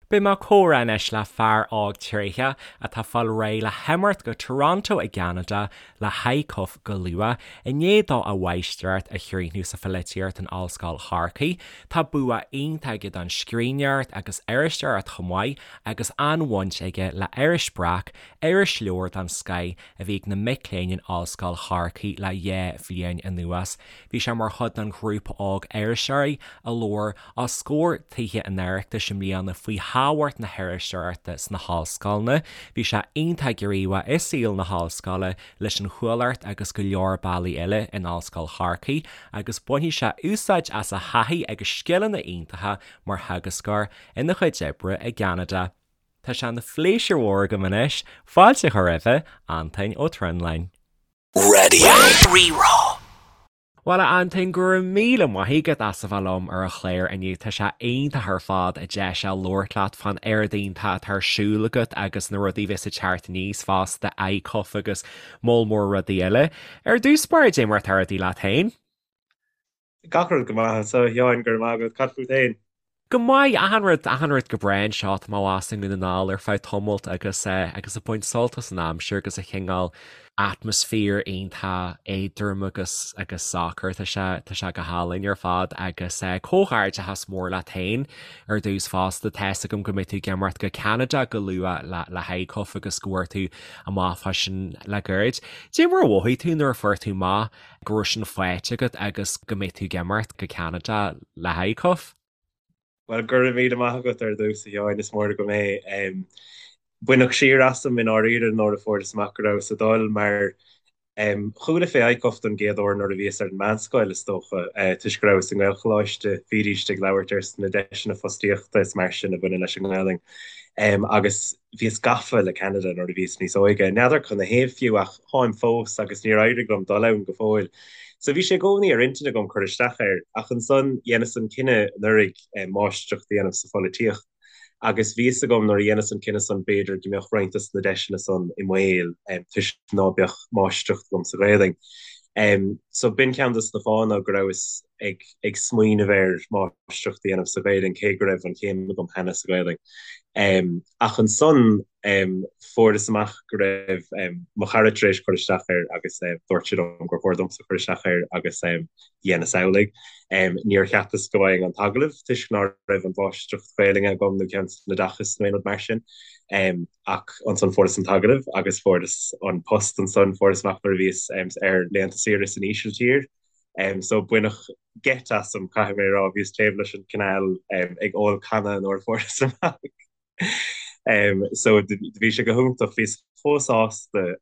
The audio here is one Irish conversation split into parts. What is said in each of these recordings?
Beidh mé ag comhrá anois le fear óg tréitheach atá ag fáil réidh le himeacht go Toronto i gCeanada le hICUF go luath, i ndiaidh dó a mháistreacht a chríochnú sa pholaitíocht in Ollscoil Chorcaí. Tá bua iontach aige don scríbhneoireacht agus iriseoireacht chomh maith agus an-bhaint aige le Iris Breac, irisleabhar den scoith a bhí ag na mic léinn in Ollscoil Chorcaí le 2 bhliain anuas. Bhí sé mar chuid den ghrúpa óg iriseoirí a labhair os comhair Tithe an Oireachtais i mbliana faoi thábhacht na hiriseoireachta sna hollscoileanna. Bhí sé iontach gníomhach i saol na hollscoile leis an Chuallacht agus go leor bealaí eile in Ollscoil Chorcaí agus bainfidh sé úsáid as a thaithí agus scileanna iontacha mar theagascóir ina chuid oibre i gCeanada. Tá sé ina phléisiúr mhór agam anois fáilte a chur roimhe, Antoin Ó Trinlúin. Raidió Rí-Rá. Bhuel, a Antoin, go raibh míle maith agat as a bheith liom ar an chlár inniu. Tá sé iontach ar fad an deis a labhairt leat fán oiread iontach atá ar siúl agat agus na rudaí a bheas ag teacht aníos fosta, ICUF agus moll mór rudaí eile. Ar dtús báire, dé mar atá rudaí leat féin? Gach rud go maith anseo, a Sheáin, go raibh maith agat. Cad fút féin? Go maith, achan rud, achan rud go breá anseo. Tá mé abhus i nDún na nGall ar feadh tamaill agus eh agus ag baint sult as an aimsir agus an chineál atmaisféar iontach éadrom agus agus socair. Tá sé tá sé go hálainn ar fad agus eh comhghairdeachas mór leat féin ar dtús fosta. Tá's agam go mbeidh tú ag imeacht go Ceanada go luath le le hICUF agus go bhfuair tú amach fá sin le gairid. Dé mar a mhothaigh tú nuair a fuair tú amach go raibh sin faighte agat agus go mbeidh tú ag imeacht go Ceanada le hICUF? Bhuel, go raibh míle maith agat ar dtús, a Sheáin, is mór agam é. Baineadh siar asam i ndáiríre nuair a fuaireas amach go rabhas ag dul, mar chuala fé ICUF don gcéad uair nuair a bhíos ar an meánscoil, is dócha, toisc go rabhas i nGaelcholáiste, bhídíst ag labhairt ar na deiseanna fostaíochta is mar sin a bhaineann leis an nGaelainn. Agus bhíos gafa le Ceanada nuair a bhíos níos óige. N'fheadar canathaobh fiú ach táim fós agus níor éirigh liom dul ann go fóill. So bhí sé i gcónaí ar intinn agam cur isteach air ach ansan dheineas an cinneadh anuraidh máistreacht a dhéanamh sa pholaitíocht agus bhí fhios agam nuair a dheineas an cinneadh san b'fhéidir go mbeadh roinnt dos na deiseanna san i mbaol toisc ná beadh máistreacht agam sa Ghaelainn. So b'in ceann dos na fáthanna go rabhas ag ag smaoineamh ar máistreacht a dhéanamh sa Ghaelainn cé go raibh an chéim agam cheana sa Ghaelainn. Ach ansan fuaireas amach go raibh mo chara tar éis cur isteach air agus dúirt sé liom gur chóir domsa cur isteach air agus dheineas amhlaidh. Níor cheapas go bhfaighinn an t-agallamh toisc ná raibh an mháistreacht Ghaelainne agam nó ceann san oideachas nó aon rud mar sin. Ach ansan fuaireas an t-agallamh agus fuaireas an post ansan, fuaireas amach nuair a bhíos ar laethanta saoire san Ísiltír. So baineadh geit asam, caithfidh mé a rá, bhíos taobh leis an canal ag ól canna nuair a fuaireas amach. So do bhí sé go hiontach, bhíos chomh sásta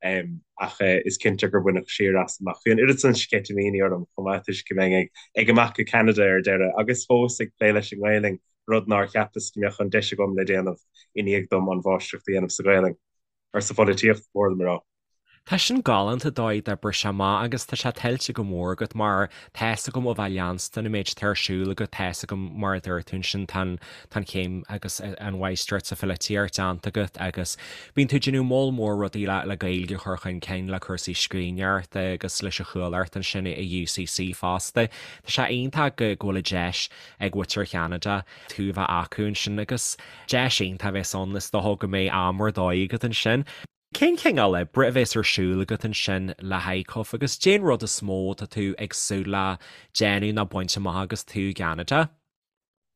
ach is cinnte gur baineadh siar asam ach bhí an oiread san sceitimíní orm chomh maith toisc go mbeinn ag imeacht go Ceanada ar deireadh agus fós ag plé leis an nGaelainn, rud nár cheapas go mbeadh an deis agam le déanamh i ndiaidh dom an mháistreacht a dhéanamh sa Ghaelainn, or sa pholaitíocht, ba chóir dom a rá. Tá sin galánta dóigh d'oibrigh sé amach agus tá sé tuillte go mór agat mar tá fhios agam ó bheith leanstan an méid atá ar siúl agat, tá fhios agam mar a dúirt tú ansin tá an tá an chéim agus an mháistreacht sa pholaitíocht déanta agat agus bíonn tú ag déanamh moll mór rudaí le le Gaeilge a chur chun cinn le cúrsaí scríbhneoireachta agus leis an Chuallacht ansin i UCC fosta. Tá sé iontach go go bhfuil an deis ag muintir Cheanada tú a bheith acu ansin agus deis iontach a bheas ann is dócha go mbeidh am ar dóigh agat ansin. Cén cineál oibre a bheas ar siúl agat ansin le hICUF agus cén rud is mó atá tú ag súil le déanamh nó baint amach agus tú i gCeanada?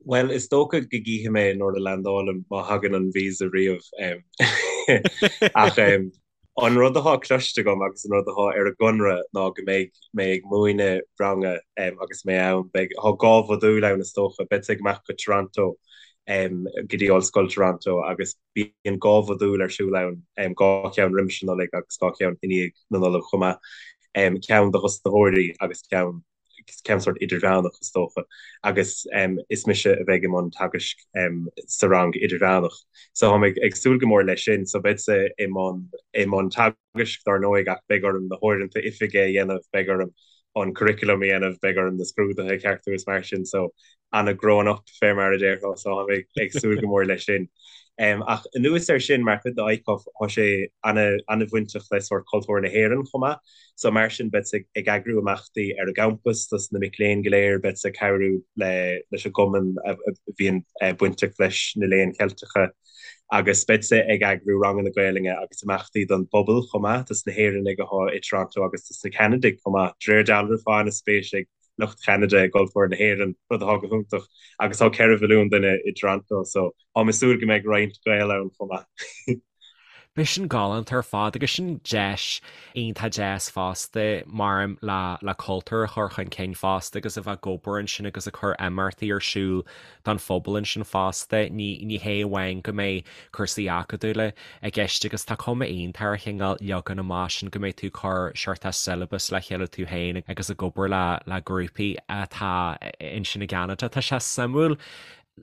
Bhuel, is dócha go gcífidh mé nuair a landálaim, má thagann an visa riamh. Ach an rud atá cloiste agam agus an rud atá ar an gconradh ná go mbeidh mé ag múineadh ranga agus mé ann. Beidh, tá 2 mhodúl ann is dócha. Beadsa ag imeacht go Toronto, go dtí Ollscoil Toronto agus Bíonn 2 mhodúl ar siúl ann, 2 cheann roimis an Nollaig agus 2 cheann i ndiaidh na Nollag chomh maith, ceann do thosnaitheoirí agus ceann ceann sórt idirmheánach is dócha, agus is mise a bheidh i mbun teagaisc sa rang idirmheánach. So táim ag súil go mór leis sin. So beadsa i mbun i mbun teagaisc dár ndóigh ach beidh orm na huaireanta oifige a dhéanamh, beidh orm an curriculum a dhéanamh, beidh orm na scrúduithe a cheartú is mar sin. So ana grown up fé mar a déarfá so táim ag súil go mór leis sin. Ach anuas air sin, mar chuid de ICUF, tá sé an-bhainteach le sórt cultúr na hÉireann chomh maith. So mar sin, beadsa ag eagrú imeachtaí ar an gcampas dos na mic léinn go léir, beadsa ag cabhrú leis an gcumann a bhíonn bainteach leis na Léinn Cheilteacha agus beadsa ag eagrú ranganna Gaelainne agus imeachtaí don bpobal chomh maith, dos na hÉireannaigh atá i Toronto agus dos na Ceanadaigh chomh maith. De réir dealraimh, tá an-spéis ag lucht Cheanada i gcultúr na hÉireann, rud atá go hiontach, agus tá 4 mhilliún duine i dToronto, so táim ag súil go mbeidh roinnt Gael ann chomh maith. Beidh sin galánta ar fad agus sin deis iontach deas fosta maram le le cultúr a chur chun cinn fosta agus a bheith ag obair ansin agus ag cur imeachtaí ar siúl don phobal ansin fosta. Ní ní hé amháin go mbeidh cúrsaí acadúla i gceist agus tá cuma iontach ar an chineál leagan amach sin go mbeidh tú ag cur seort syllabus le chéile tú féin agus ag obair le le grúpaí atá ansin i gCeanada. Tá sé suimiúil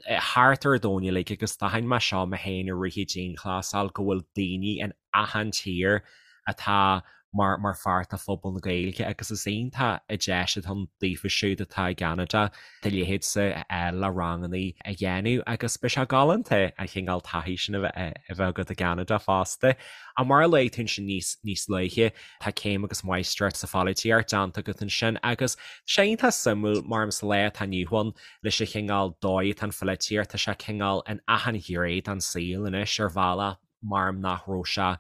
thart ar an domhan uilig agus d'aithin mé seo mé féin i rith an dianghlasáil go bhfuil daoine in achan tír atá mar mar pháirt de phobal na Gaeilge agus is iontach an deis atá ann daofa siúd atá i gCeanada do leithéidse a fháil le rangannaí a dhéanamh agus beidh sé galánta an chineál taithí sin a bheith a bheith agat i gCeanada fosta. Ach mar a luaigh tú ansin níos níos luaithe tá céim agus máistreacht sa pholaitíocht déanta agat ansin agus tá sé iontach suimiúil mar sa lá atá inniu ann leis an chineál dóigh atá an pholaitíocht, tá sé cineál in achan ghné den saol anois ar bhealach mar nach raibh sé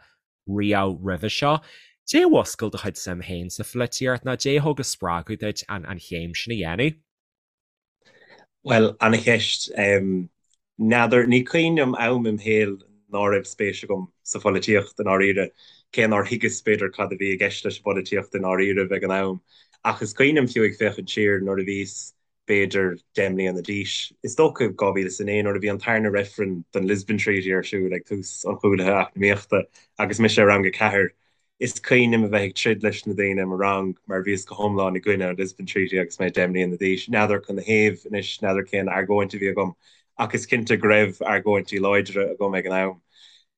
riamh roimhe seo. Dé a mhúscail do chuid suim féin sa pholaitíocht nó dé a thug an spreagadh duit an an chéim sin a dhéanamh? Bhuel, ana-cheist. N'fheadar, ní cuimhin liom am im shaol ná raibh spéis agam sa pholaitíocht i ndáiríre, cé nár thuigeas b'fhéidir cad a bhí i gceist leis an bpolaitíocht i ndáiríribh ag an am. Ach is cuimhin liom fiú ag féachaint siar nuair a bhíos b'fhéidir 10 mbliana d'aois, is dócha 2009, nuair a bhí an tarna reifreann don Lisbon Treaty ar siúl ag tús an chúlaithe eacnamaíochta agus mise i rang a ceathair. Is cuimhin liom a bheith ag troid leis na daoine i mo rang mar bhíos go hiomlán i gcoinne an Lisbon Treaty agus mé 10 mbliana d'aois. N'fheadar canathaobh anois, n'fheadar cén argóint a bhí agam ach is cinnte go raibh argóintí láidre agam ag an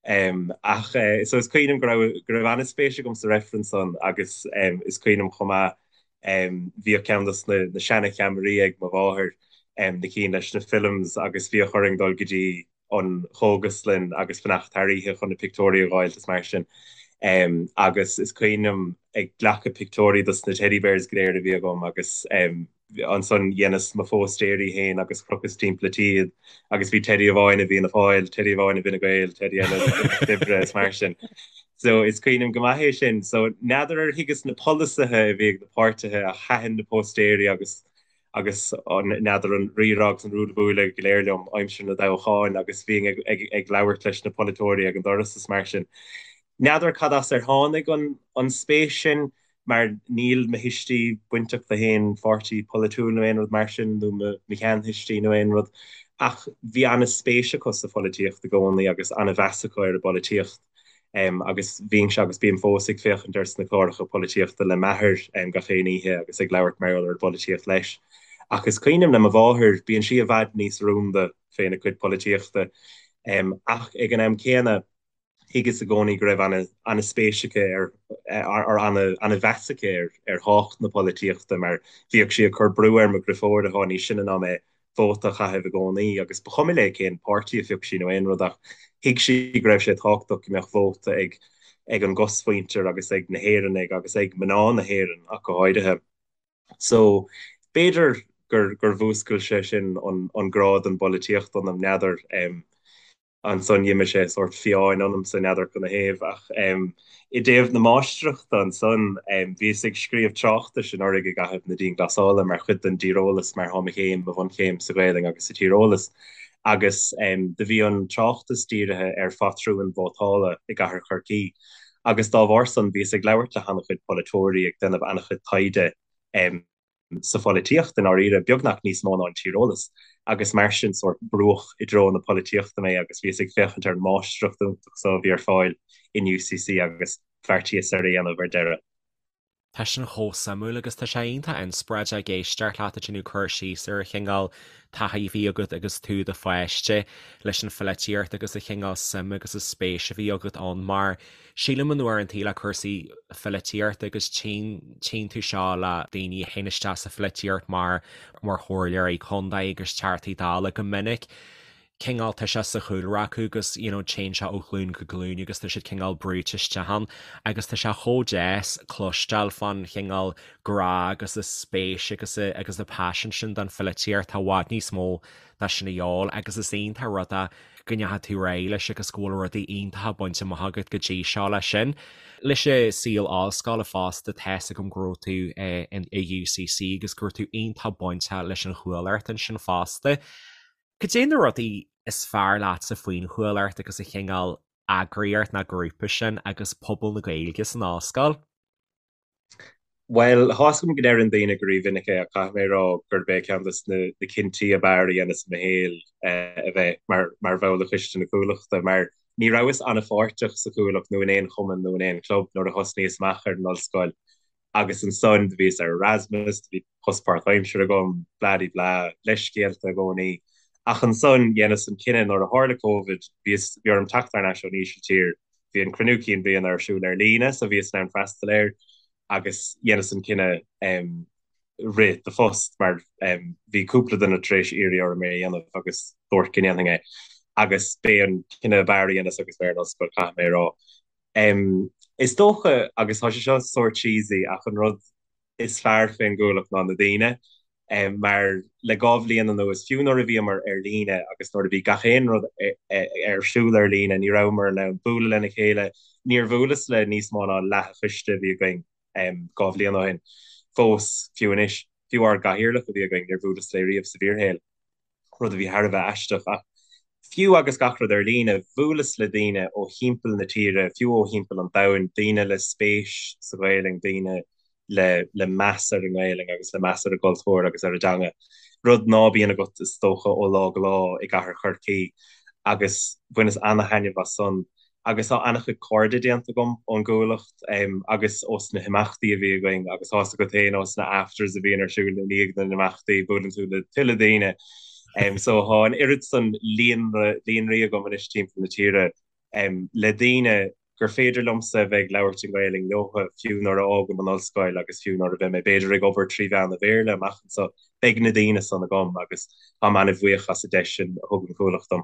am. Ach so is cuimhin liom go raibh go raibh an-spéis agam sa reifreann san agus is cuimhin liom chomh maith Bhíodh ceann dos na seana-cheamaraí ag mo mháthair, na cinn leis na films agus bhíodh orainn dul go dtí an chógaslann agus fanacht thar oíche chun na pictiúirí a dh'fháilt is mar sin. Agus is cuimhin liom ag glacadh pictiúirí dos na teddy bears go léir a bhí agam agus ansan dheineas mo phóstaeirí féin agus chrochas timpeall an tí iad agus bhí teddy amháin i bhFianna Fáil, teddy amháin i bhFine Gael, teddy eile i Lucht Oibre is mar sin. So is cuimhin liom go maith é sin. So n'fheadar ar thuigeas na polasaithe a bhí ag na páirtithe ach thaitin na póstaeirí agus agus an n'fheadar an rírá agus an ruaille buaille go léir liom aimsir na dtoghcháin agus bhínn ag ag ag labhairt leis na polaiteoirí ag an doras is mar sin. N'fheadar cad as ar tháinig an an spéis sin mar níl mo thuistí bainteach le haon pháirtí polaitiúil nó aon rud mar sin nó mo sheanthuistí nó aon rud ach bhí an-spéis acu sa pholaitíocht i gcónaí agus an-mheas acu ar an bpolaitíocht. Agus bhínnse agus bím fós ag féachaint ar sna cláracha polaitíochta le m'athair gach aon oíche agus ag labhairt mar gheall ar an bpolaitíocht leis. Ach is cuimhin liom le mo mháthair, bíonn sí i bhfad níos rúnda féna cuid polaitíochta. Ach ag an am céanna, thuigeas i gcónaí go raibh an-spéis aici ar, ar an-mheas aici ar thábhacht na polaitíochta mar bhíodh sí ag cur brú ar mo dhriofóir atá níos sine ná mé vóta a chaitheamh i gcónaí agus ba chuma léi cén páirtí a phioc sí nó aon rud ach thuig sí go raibh sé tábhachtach go mbeadh vóta ag ag an gcosmhuintir agus ag na hÉireannaigh agus ag mná na hÉireann ach go háirithe. So b'fhéidir gur gur mhúscail sé sin an an grá don bpolaitíocht ionam, n'fheadar. Ansan d'imigh sé sórt fiáin ionamsa, n'fheadar canathaobh, ach i dtaobh na máistreachta ansan, bhíos ag scríobh tráchtais anuraidh i gcaitheamh na dianghlasála mar chuid den dtíreolas mar thá mo chéim, mo bhunchéim sa Ghaelainn agus sa tíreolas agus do bhí an tráchtas dírithe ar phatrúin vótála i gcathair Chorcaí agus dá bharr san bhíos ag labhairt le han-chuid polaiteoirí, ag déanamh an-chuid taighde. sa pholaitíocht i ndáiríre, beagnach níos mó ná an tíreolas, agus mar sin sórt brúdh i dtreo na polaitíochta mé agus bhíos ag féachaint ar an máistreacht iontach so a bhí ar fáil in UCC agus bheartaíos ar a dhéanamh ar deireadh. Tá sin chomh suimiúil agus tá sé iontach inspioráideach ag éisteacht leat ag déanamh cur síos ar an chineál taithí a bhí agat agus tú i do pháiste leis an pholaitíocht agus an chineál suime agus an spéis a bhí agat ann mar Sílim in uaireantaí le cúrsaí pholaitíochta agus tchíonn tchíonn tú seo le daoine a théann isteach sa pholaitíocht mar mar chomhairleoirí contae agus teachtaí dála go minic. cineál tá sé sa chúlra acu agus you know téann sé ó ghlúin go glúin agus tá siad cineál brúite isteach ann agus tá sé chomh deas cloisteáil fán chineál grá agus an spéis agus agus an paisean sin don pholaitíocht tá i bhfad níos mó de sin a dhíobháil agus is iontach rud é go ndeachaigh tú ar aghaidh leis agus go bhfuil rudaí iontacha bainte amach agat go dtí seo leis sin. Leis an saol ollscoile fosta tá's agam go raibh tú i UCC agus go raibh tú iontach bainteach leis an Chuallacht ansin fosta. Cad é na rudaí is fearr leatsa faoin Chuallacht agus an chineál eagraíocht ná grúpa sin agus pobal na Gaeilge san ollscoil? Bhuel, tá's agam go ndeireann daoine go rímhinic é ach caithfidh mé a rá gurb é ceann de na cinntí ab fhearr a dheineas i mo shaol a bheith mar bhall de choiste na Cuallachta mar ní rabhas an-pháirteach sa Chuallacht nó in aon chumann nó in aon chlub nuair a thosnaíos amach ar an ollscoil agus ansan do bhíos ar Erasmus, do bhí post páirtaimseartha agam, blah-de-blah, leithscéalta i gcónaí. Ach ansan dheineas an cinneadh nuair a tharla Covid, bhíos, bhí orm teacht thar n-ais ón Ísiltír, bhí an cruinniú cinn bliana ar siúl ar líne so bhíos in ann freastal air agus dheineas an cinneadh rith do phost mar bhí cúpla duine tar éis iarraidh orm é a dhéanamh agus dúirt go ndéanfainn é agus b'é an cinneadh ab fhearr a dheineas agus mé ar an ollscoil, caithfidh mé a rá. Is dócha, agus tá sé seo sórt cheesy, ach an rud is fearr fén gCuallacht ná na daoine. Mar le 2 bhliain anuas, fiú nuair a bhíomar ar líne agus nuair a bhí gach aon rud ar siúl ar líne, ní rabhamar in ann bualadh lena chéile. Níor bhuaileas le níos mó ná leath an choiste a bhí againn 2 bhliain ó shin. Fós, fiú anois, fiú ár gcathaoirleach a bhí againn, níor bhuaileas léi riamh sa bhfíorshaol. rud a bhí thar a bheith aisteach. Ach fiú agus gach rud ar líne, bhuaileas le daoine ó thimpeall na tíre, fiú ó thimpeall an domhain, daoine le spéis sa Ghaelainn, daoine le le meas ar an nGaelainn agus le meas ar an gcultúr agus ar an dteanga, rud ná bíonn agat is dócha ó lá go lá i gcathair Chorcaí. Agus bhaineas ana-thaitneamh as san. Agus tá ana-chuid cairde déanta agam ón gCuallacht agus ós na himeachtaí a bhí againn agus tá's agat féin ós na afters a bhíonn ar siúl i ndiaidh na n-imeachtaí, buaileann tú le tuilleadh daoine. So tá an oiread san líonra, líonraí agam anois timpeall na tíre le daoine gur féidir liomsa a bheith ag labhairt i nGaelainn leotha fiú nuair a fhágaim an ollscoil agus fiú nuair a bheidh mé b'fhéidir ag obair 3 mheán an Bhéarla amach anseo, beidh na daoine san agam agus táim ana-bhuíoch as an deis sin a thug an Chuallacht dom.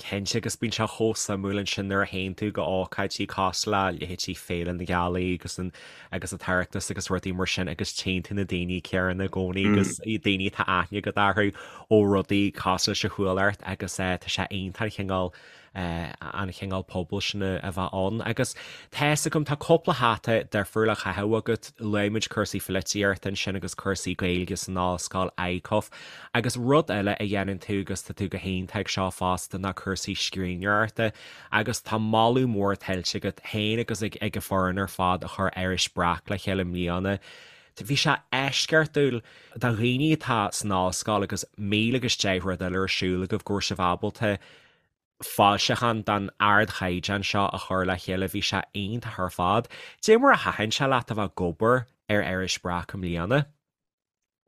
Cinnte, agus bíonn sé chomh suimiúil ansin nuair a théann tú go ócáidí cosúil le leithéidí Féile na Gealaí agus an agus an tOireachtas agus rudaí mar sin agus tchíonn tú na daoine céanna i gcónaí agus daoine atá aithne agat orthu ó rudaí cosúil leis an Chuallacht agus tá sé iontach an chineál an chineál pobail sin a bheith ann. Agus tá fhios agam, tá cúpla hata difriúil á chaitheamh agat, luaigh muid cúrsaí pholaitíochta ansin agus cúrsaí Gaeilge san ollscoil, ICUF, agus rud eile a dhéanann tú agus tá tú go hiontach ag seo fosta ná cúrsaí scríbhneoireachta agus tá moladh mór tuillte agat féin agus ag ag an foireann ar fad a chuir Iris Breac le chéile i mbliana. Bhí sé eisceachtúil do dhaoine atá san ollscoil agus 1000 agus 10 rud eile ar siúl agaibh go raibh sibh ábalta foilseachán den ardchaighdeán seo a chur le chéile, bhí sé iontach ar fad. Dé mar a thaitin sé leat a bheith ag obair ar Iris Breac i mbliana?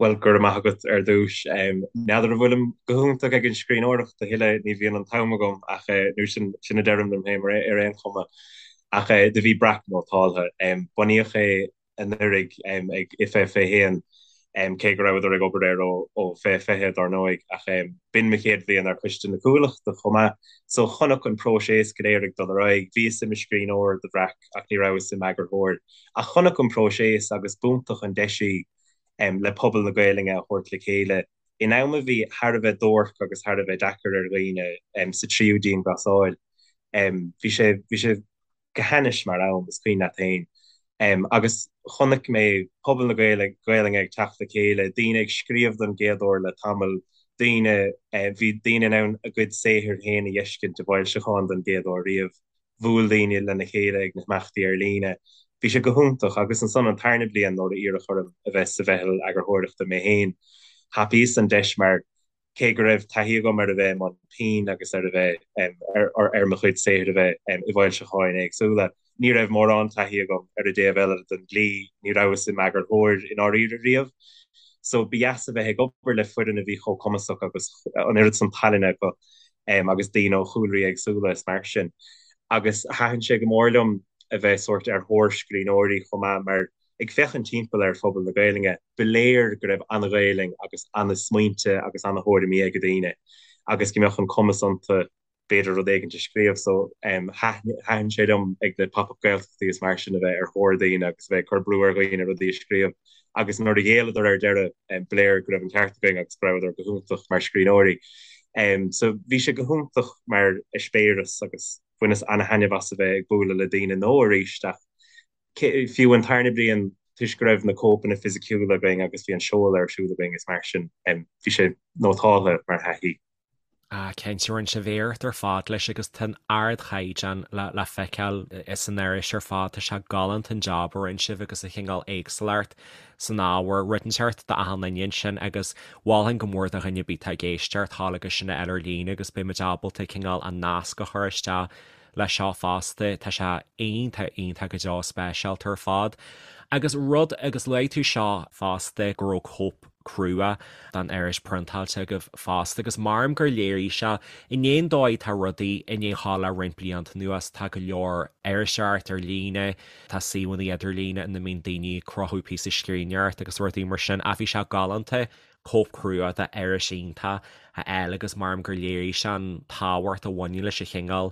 Bhuel, go raibh maith agat ar dtús. N'fheadar an bhfuilim go hiontach ag an scríbhneoireacht a thuilleadh, ní bhíonn an t-am agam ach, nó sin, sin a deirim liom féin ar aon chuma. Ach do bhí Breac nótáltha. Bunaíodh é anuraidh ag IFA 21, cé go rabhadar ag obair air ó 2020 dár ndóigh, ach b'in mo chéad bhliain ar choiste na Cuallachta chomh maith, so chonac an próiseas go léir ag dul ar aghaidh. Bhíos i mo scríbhneoir do Bhreac ach ní rabhas i m'eagarthóir. Ach chonac an próiseas agus b'iontach an deis í le pobal na Gaelainne a thabhairt le chéile in am a bhí thar a bheith duairc agus thar a bheith deacair ar dhaoine sa tríú dianghlasáil. Bhí sé, bhí sé. go hainnis mar am, is cuimhin leat féin. Agus chonaic mé pobal na Gaelainne ag teacht le chéile, daoine ag scríobh don gcéad uair le tamall, daoine, bhí daoine in ann a gcuid saothair féin a dh'fheiscint i bhfoilseachán don gcéad uair riamh, bhuail daoine lena chéile ag na himeachtaí ar líne. Bhí sé go hiontach. Agus ansan an tarna bliain nuair a iarradh orm a bheith sa mheitheal eagarthóireachta mé féin, thapaíos an deis mar cé go raibh taithí agam ar a bheith i mbun pinn agus ar a bheith ar mo chuid saothair a bheith i bhfoilseacháin éagsúla, ní raibh mórán taithí agam ar an dtaobh eile den dlí, ní rabhas i m'eagarthóir i ndáiríre riamh. So ba dheas a bheith ag obair le foireann a bhí chomh cumasach agus an oiread san tallainne acu agus daoine ó chúlraí éagsúla is mar sin. Agus thaitin sé go mór liom a bheith sórt ar thóir scríbhneoirí chomh maith mar Ag féachaint timpeall ar phobal na Gaelainne, ba léir go raibh ana-Ghaelainn agus ana-smaointe agus ana-thuairimí ag daoine. agus go mbeadh an cumas iontu b'fhéidir rud éigint a scríobh. So thaitin sé liom ag na Pop Up Gaeltachtaí is mar sin a bheith ar thóir daoine agus a bheith ag cur brú ar dhaoine rudaí a scríobh agus nuair a ghéilleadar ar deireadh ba léir go raibh an ceart againn agus go rabhadar go hiontach mar scríbhneoirí. So bhí sé go hiontach mar eispéireas agus bhaineas ana-thaitneamh as a bheith ag bualadh le daoine nua arís ach fiú an tarna bliain toisc go raibh na cóipeanna fisiciúla againn agus bhí an seoladh ar siúl againn is mar sin bhí sé nótáltha mar thaithí. Ah, cinnte, rinne sibh iarracht ar fad leis agus tá an ardchaighdeán le feiceáil san iris ar fad. Tá sé galánta an jab a rinne sibh agus an chineál éagsúlacht san ábhar, rud inteacht d'achan duine ansin agus mholfainn go mór do dhuine ar bith atá ag éisteacht thall agus sin a fháil ar líne agus beidh muid ábalta cineál an nasc a chur isteach leis seo fosta. Tá sé iontach, iontach go deo speisialta ar fad. Agus rud, agus luaigh tú seo fosta, go raibh cóip crua den iris priontáilte agaibh fosta agus maram gur léirigh sé i ndiaidh an dóigh atá rudaí i ndiaidh a ghabháil le roinnt blianta anuas, tá go leor iriseoireacht ar líne, tá suíomhanna idirlíne ina mbíonn daoine ag cruthú píosa scríbhneoireachta agus rudaí mar sin ach bhí sé galánta cóip chrua d'iris iontach a fháil agus maram gur léirigh sé an tábhacht a bhaineann leis an chineál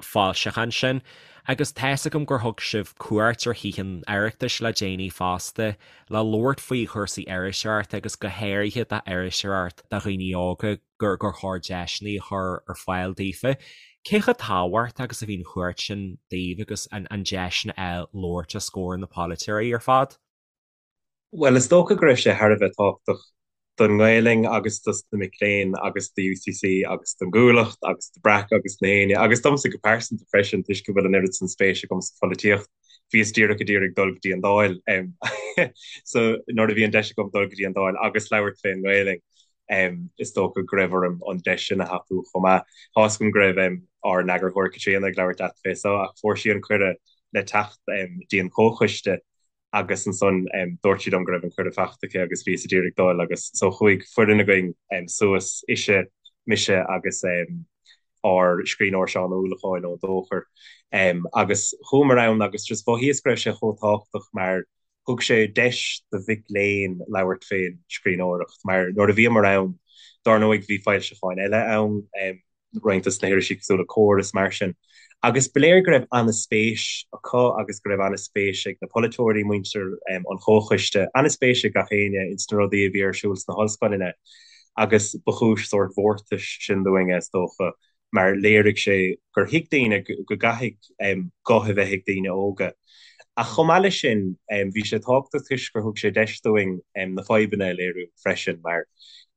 foilseachán sin. Agus tá's agam gur thug sibh cuairt ar Thithe an Oireachtais le déanaí fosta le labhairt faoi chúrsaí iriseoireachta agus go háirithe d'iriseoireacht do dhaoine óga gur gur chóir deiseanna a chur ar fáil daofa. Cé chomh tábhachtach agus a bhí an chuairt sin daoibh agus an deis sin a fháil labhairt os comhair na polaiteoirí ar fad? Bhuel, is dócha go raibh sé thar a bheith tábhachtach don nGaelainn agus dos na mic léinn agus do UCC agus don gCuallacht agus do Breac agus na héinne agus domsa go pearsanta freisin toisc go bhfuil an oiread san spéis agam sa pholaitíocht. Bhíos díreach ag iarraidh dul go dtí an Dáil so nuair a bhí an deis agam dul go dtí an Dáil agus labhairt fén nGaelainn is dócha go raibh orm an deis sin a thapú chomh maith. Tá's agam go raibh ár n-eagarthóir Caitríona ag labhairt leat fé so ach fuair sí an cuireadh le teacht dtí an comhchoiste agus ansan dúirt sí liom go raibh an cuireadh faighte aici agus bhíos ag iarraidh dul agus so chuaigh foireann againn suas, ise, mise agus ár scríbhneoir Seán Ó Uallacháin ón Dóchar agus chuamar ann agus just mhothaíos go raibh sé chomh tábhachtach mar thug sé deis do mhic léinn labhairt fén scríbhneoireacht mar nuair a bhíomar ann dár ndóigh bhí foilseacháin eile ann roinnt dos na hirisí cosúil le Comhar is mar sin. Agus ba léir go raibh an-spéis acu agus go raibh an-spéis ag na polaiteoirí, muintir an chomhchoiste, an-spéis ag gach éinne ins na rudaí a bhí ar siúl sna hollscoileanna agus ba chúis sórt mhórtais sin dúinne, is dócha, mar léirigh sé gur thuig daoine go gcaithfidh guth a bheith ag daoine óga. Ach chomh maith leis sin, bhí sé tábhachtach toisc gur thug sé deis dúinn na fadhbanna a léiriú freisin mar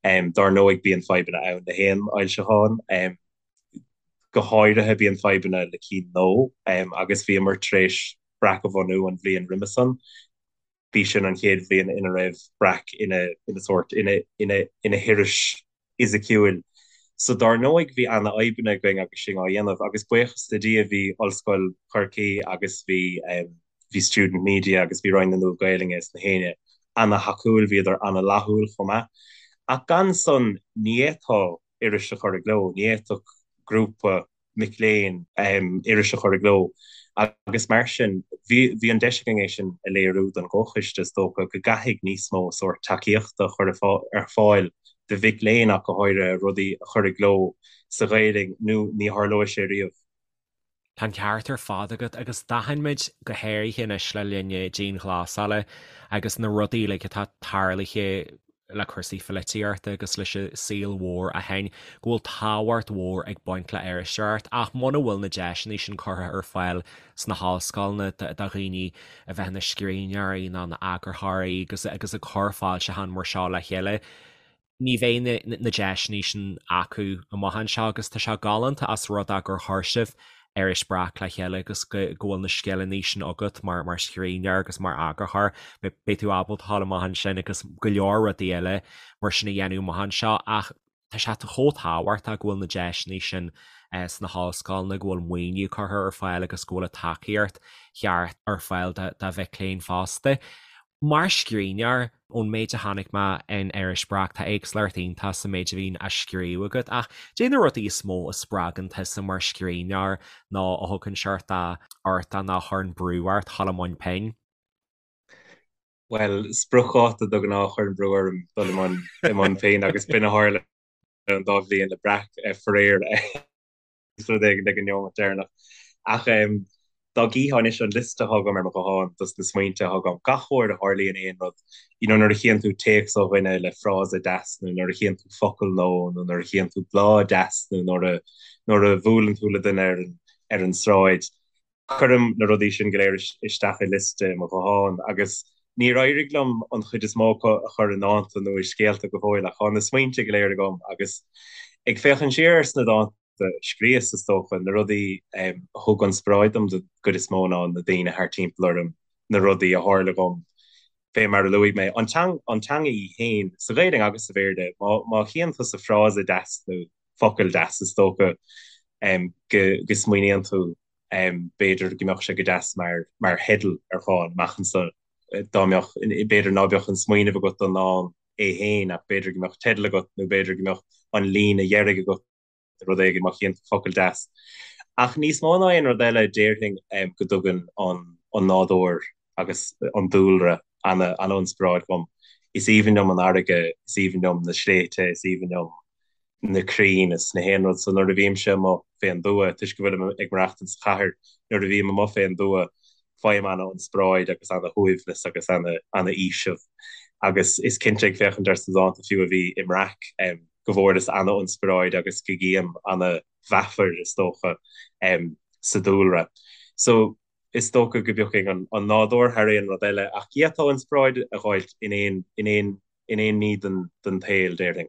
Dár ndóigh bíonn fadhbanna ann le haon fhoilseachán, go háirithe bíonn fadhbanna le cinn nua agus bhíomar tar éis Breac a bhunú an bhliain roimhe san. B'í sin an chéad bhliain ina raibh Breac ina ina sórt ina ina ina hiris fhisiciúil. So dár ndóigh bhí ana-fhadhbanna againn agus sinn á dhéanamh agus buíochas le Dia bhí Ollscoil Chorcaí agus bhí bhí Student Media agus bhí Roinn na Nua-Ghaelainne is na héinne ana-thacúil, bhíodar ana-fhlaithiúil chomh maith. Ach gan san ní fhéadfá iris a chur i gcló, ní fhéadfadh grúpa mic léinn iris a chur i gcló agus mar sin bhí bhí an deis againn é sin a léiriú don gcomhchoiste is dócha go gcaithfidh níos mó sórt tacaíochta a chur ar fáil do mhic léinn ach go háirithe rudaí a chur i gcló sa Ghaelainn nó ní tharlóidh sé riamh. Tá an ceart ar fad agat agus d'aithin muid go háirithe anois le linn na dianghlasála agus na rudaí uilig atá tarlaithe le cúrsaí pholaitíochta agus leis an saol mhór ó shin go bhfuil tábhacht mhór ag baint le iriseoireacht ach muna bhfuil na deiseanna sin curtha ar fáil sna hollscoileanna do dhaoine a bheith ina scríbhneoirí nó ina eagarthóirí agus agus ag cur foilseachán mar seo le chéile ní bheidh na deiseanna sin acu amach anseo agus tá sé galánta as rud é gur chuir sibh iris Breac le chéile agus go bhfuil na scileanna sin agat mar mar scríbhneoir agus mar eagarthóir. Beidh tú ábalta dul amach ansin agus go leor rudaí eile mar sin a dhéanamh amach anseo ach tá sé chomh tábhachtach go bhfuil na deiseanna sin sna hollscoileanna, go bhfuil maoiniú curtha ar fáil agus go bhfuil an tacaíocht cheart ar fáil do mhic léinn fosta. Mar scríbhneoir, ón méid a chonaic mé in Iris Breac, tá éagsúlacht iontach sa méid a bhíonn á scríobh agat, ach caidé na rudaí is mó a spreagann tusa mar scríbhneoir nó a thugann seort de ort nó a chuireann brú ort dhul i mbun pinn? Bhuel, spriocdháta de ghnáth a chuireann brú orm dul i mbun pinn agus b'in a tharla. an dá bhliain le Breac, faraor. Rud éigin ag an neomat deireanach. Ach dá gcífeá anois an liosta atá agam ar mo ghuthán dos na smaointe atá agam, gach uair a tharlaíonn aon rud, you know nuair a chíonn tú téacs ó dhuine le frása deas nó nuair a chíonn tú focal nó nó nuair a chíonn tú bláth deas nó nuair a nuair a bhuaileann tú le duine ar an ar an sráid, Cuirim na rudaí sin go léir isteach i liosta i mo ghuthán agus níor éirigh liom an chuid is mó acu a chur i ndánta nó i scéalta go fóill ach tá na smaointe go léir agam agus ag féachaint siar ar sna dánta a scríos, is dócha, na rudaí a thug inspioráid dom den gcuid is mó ná na daoine thart timpeall orm, na rudaí a tharla dhom, fé mar a luaigh mé, an teanga í féin, sa Ghaeilge agus sa Bhéarla, má chíonn tusa frása deas nó focal deas, is dócha go smaoiníonn tú b'fhéidir go mbeadh sé go deas mar mar theideal ar dhán amach anso dá mbeadh, b'fhéidir ná beadh an smaoineamh agat don ndán é féin ach b'fhéidir go mbeadh teideal agat nó b'fhéidir go mbeadh an líne dheiridh agat nó rud éigin má chíonn tú focal deas. Ach níos mó ná aon rud eile déarfainn go dtugann an an nádúr agus an dúlra ana ana-inspioráid dhom. Is aoibhinn liom an fharraige, is aoibhinn liom na sléibhte, is aoibhinn liom na crainn is na haon rud. So nuair a bhímse amuigh fén dtuath, toisc go bhfuilim ag maireachtaint sa chathair, nuair a bhím amuigh fén dtuath, faighim ana-inspioráid agus ana-shuaimhneas agus ana-fhaoiseamh. Agus is cinnte ag féachaint ar sna dánta fiú a bhí i mBreac, go bhfuaireas ana-inspioráid agus go gcím ana-mheafar, is dócha, sa dúlra. So is dócha go bpiocfainn an nádúr thar aon rud eile, ach d'fhéadfá inspioráid a dh'fháilt in aon, in aon, in aon ní den, den tsaol, déarfainn.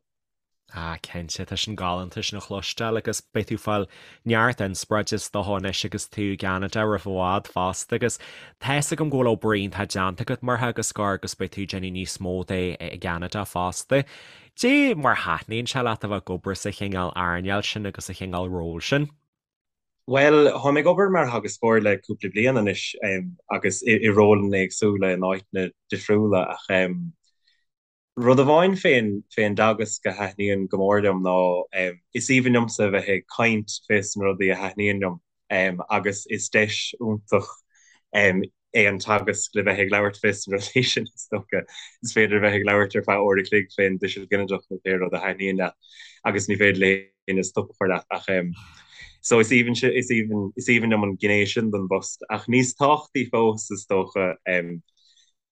Ah, cinnte, tá sin galánta sin a chloisteáil agus beidh tú ag fáil neart inspioráide is dócha anois agus tú i gCeanada roimh i bhfad fosta agus tá fhios agam go bhfuil obair iontach déanta agat mar theagascóir agus beidh tú ag déanamh níos mó de i gCeanada fosta. Dé mar thaitníonn sé leat a bheith ag obair sa chineál earnáil sin agus sa chineál ról sin? Bhuel, táim ag obair mar theagascóir le cúpla bliain anois agus i rólanna éagsúla in áiteanna difriúla ach rud amháin fén fén dteagasc a thaitníonn go mór liom ná is aoibhinn liomsa a bheith ag caint fés na rudaí a thaitníonn liom agus is deis iontach é an teagasc le bheith ag labhairt fés na rudaí sin is dócha. Is féidir a bheith ag labhairt ar feadh uair a chloig fén dtuiseal ginideach nó pé rud a thaitníonn leat agus ní féidir le héinne stop a chur leat ach so is aoibhinn is aoibhinn is aoibhinn liom an ghné sin den bpost ach níos tábhachtaí fós is dócha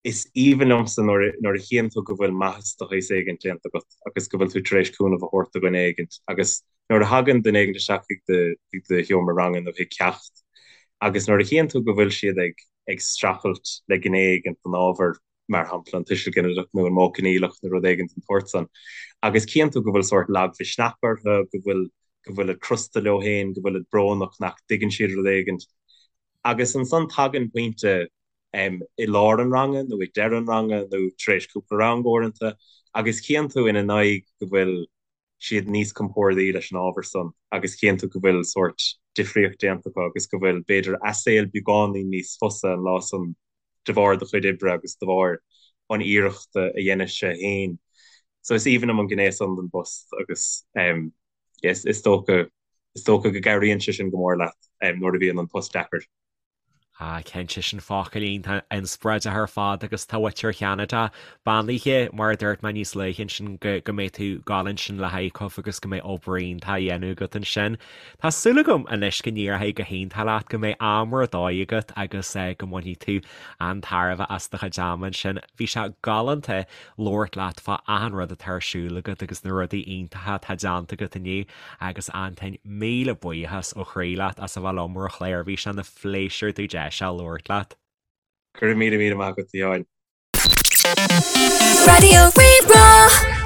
Is aoibhinn liomsa nuair a chíonn tú go bhfuil maitheas de shaghas éigint déanta agat agus go bhfuil tú tar éis cúnamh a thabhairt do dhuine éigint agus nuair a thagann duine éigint isteach chuig do chuig do sheomra ranga nó chuig ceacht agus nuair a chíonn tú go bhfuil siad ag ag streachailt le gné éigint den ábhar, mar shampla an tuiseal ginideach nó an modh coinníollach nó rud éigint den tsórt san, agus cíonn tú go bhfuil sórt lagmhisneach orthu, go bhfuil go bhfuilid crosta leo féin, go bhfuilid brónach nach dtuigeann siad rud éigint agus ansan tagann pointe i lár an ranga nó ag deireadh an ranga nó tar éis cúpla rang uaireanta agus cíonn tú ina n-aghaidh go bhfuil siad níos compórdaí leis an ábhar san agus cíonn tú go bhfuil sórt difríocht déanta acu agus go bhfuil b'fhéidir a saol beagáinín níos fusa an lá san de bharr do chuid oibre agus de bharr an iarrachta a dheinis-se féin. So is aoibhinn liom an gné san den bpost agus is dócha is dócha go gcabhraíonn sé sin go mór leat nuair a bhíonn an post deacair. Ah, cinnte, sin focail iontach inspioráideach ar fad agus tá muintir Cheanada beannaithe, mar a dúirt mé níos luaithe ansin, go go mbeidh tú ag gabháil ansin le ICUF agus go mbeidh obair iontach á dhéanamh agat ansin. Tá súil agam anois go n-éireoidh go hiontach leat, go mbeidh am ar dóigh agat agus go mbainfidh tú an-tairbhe as do chuid ama ansin. Bhí sé galánta labhairt leat fá achan rud atá ar siúl agat agus na rudaí iontacha atá déanta agat inniu. Agus Antain, míle buíochas ó chroí leat as a bheith liom ar an chlár, bhí sé ina phléisiúr domh deis a labhairt leat. Go raibh míle míle maith agat, a Sheáin. Raidió Rí-Rá.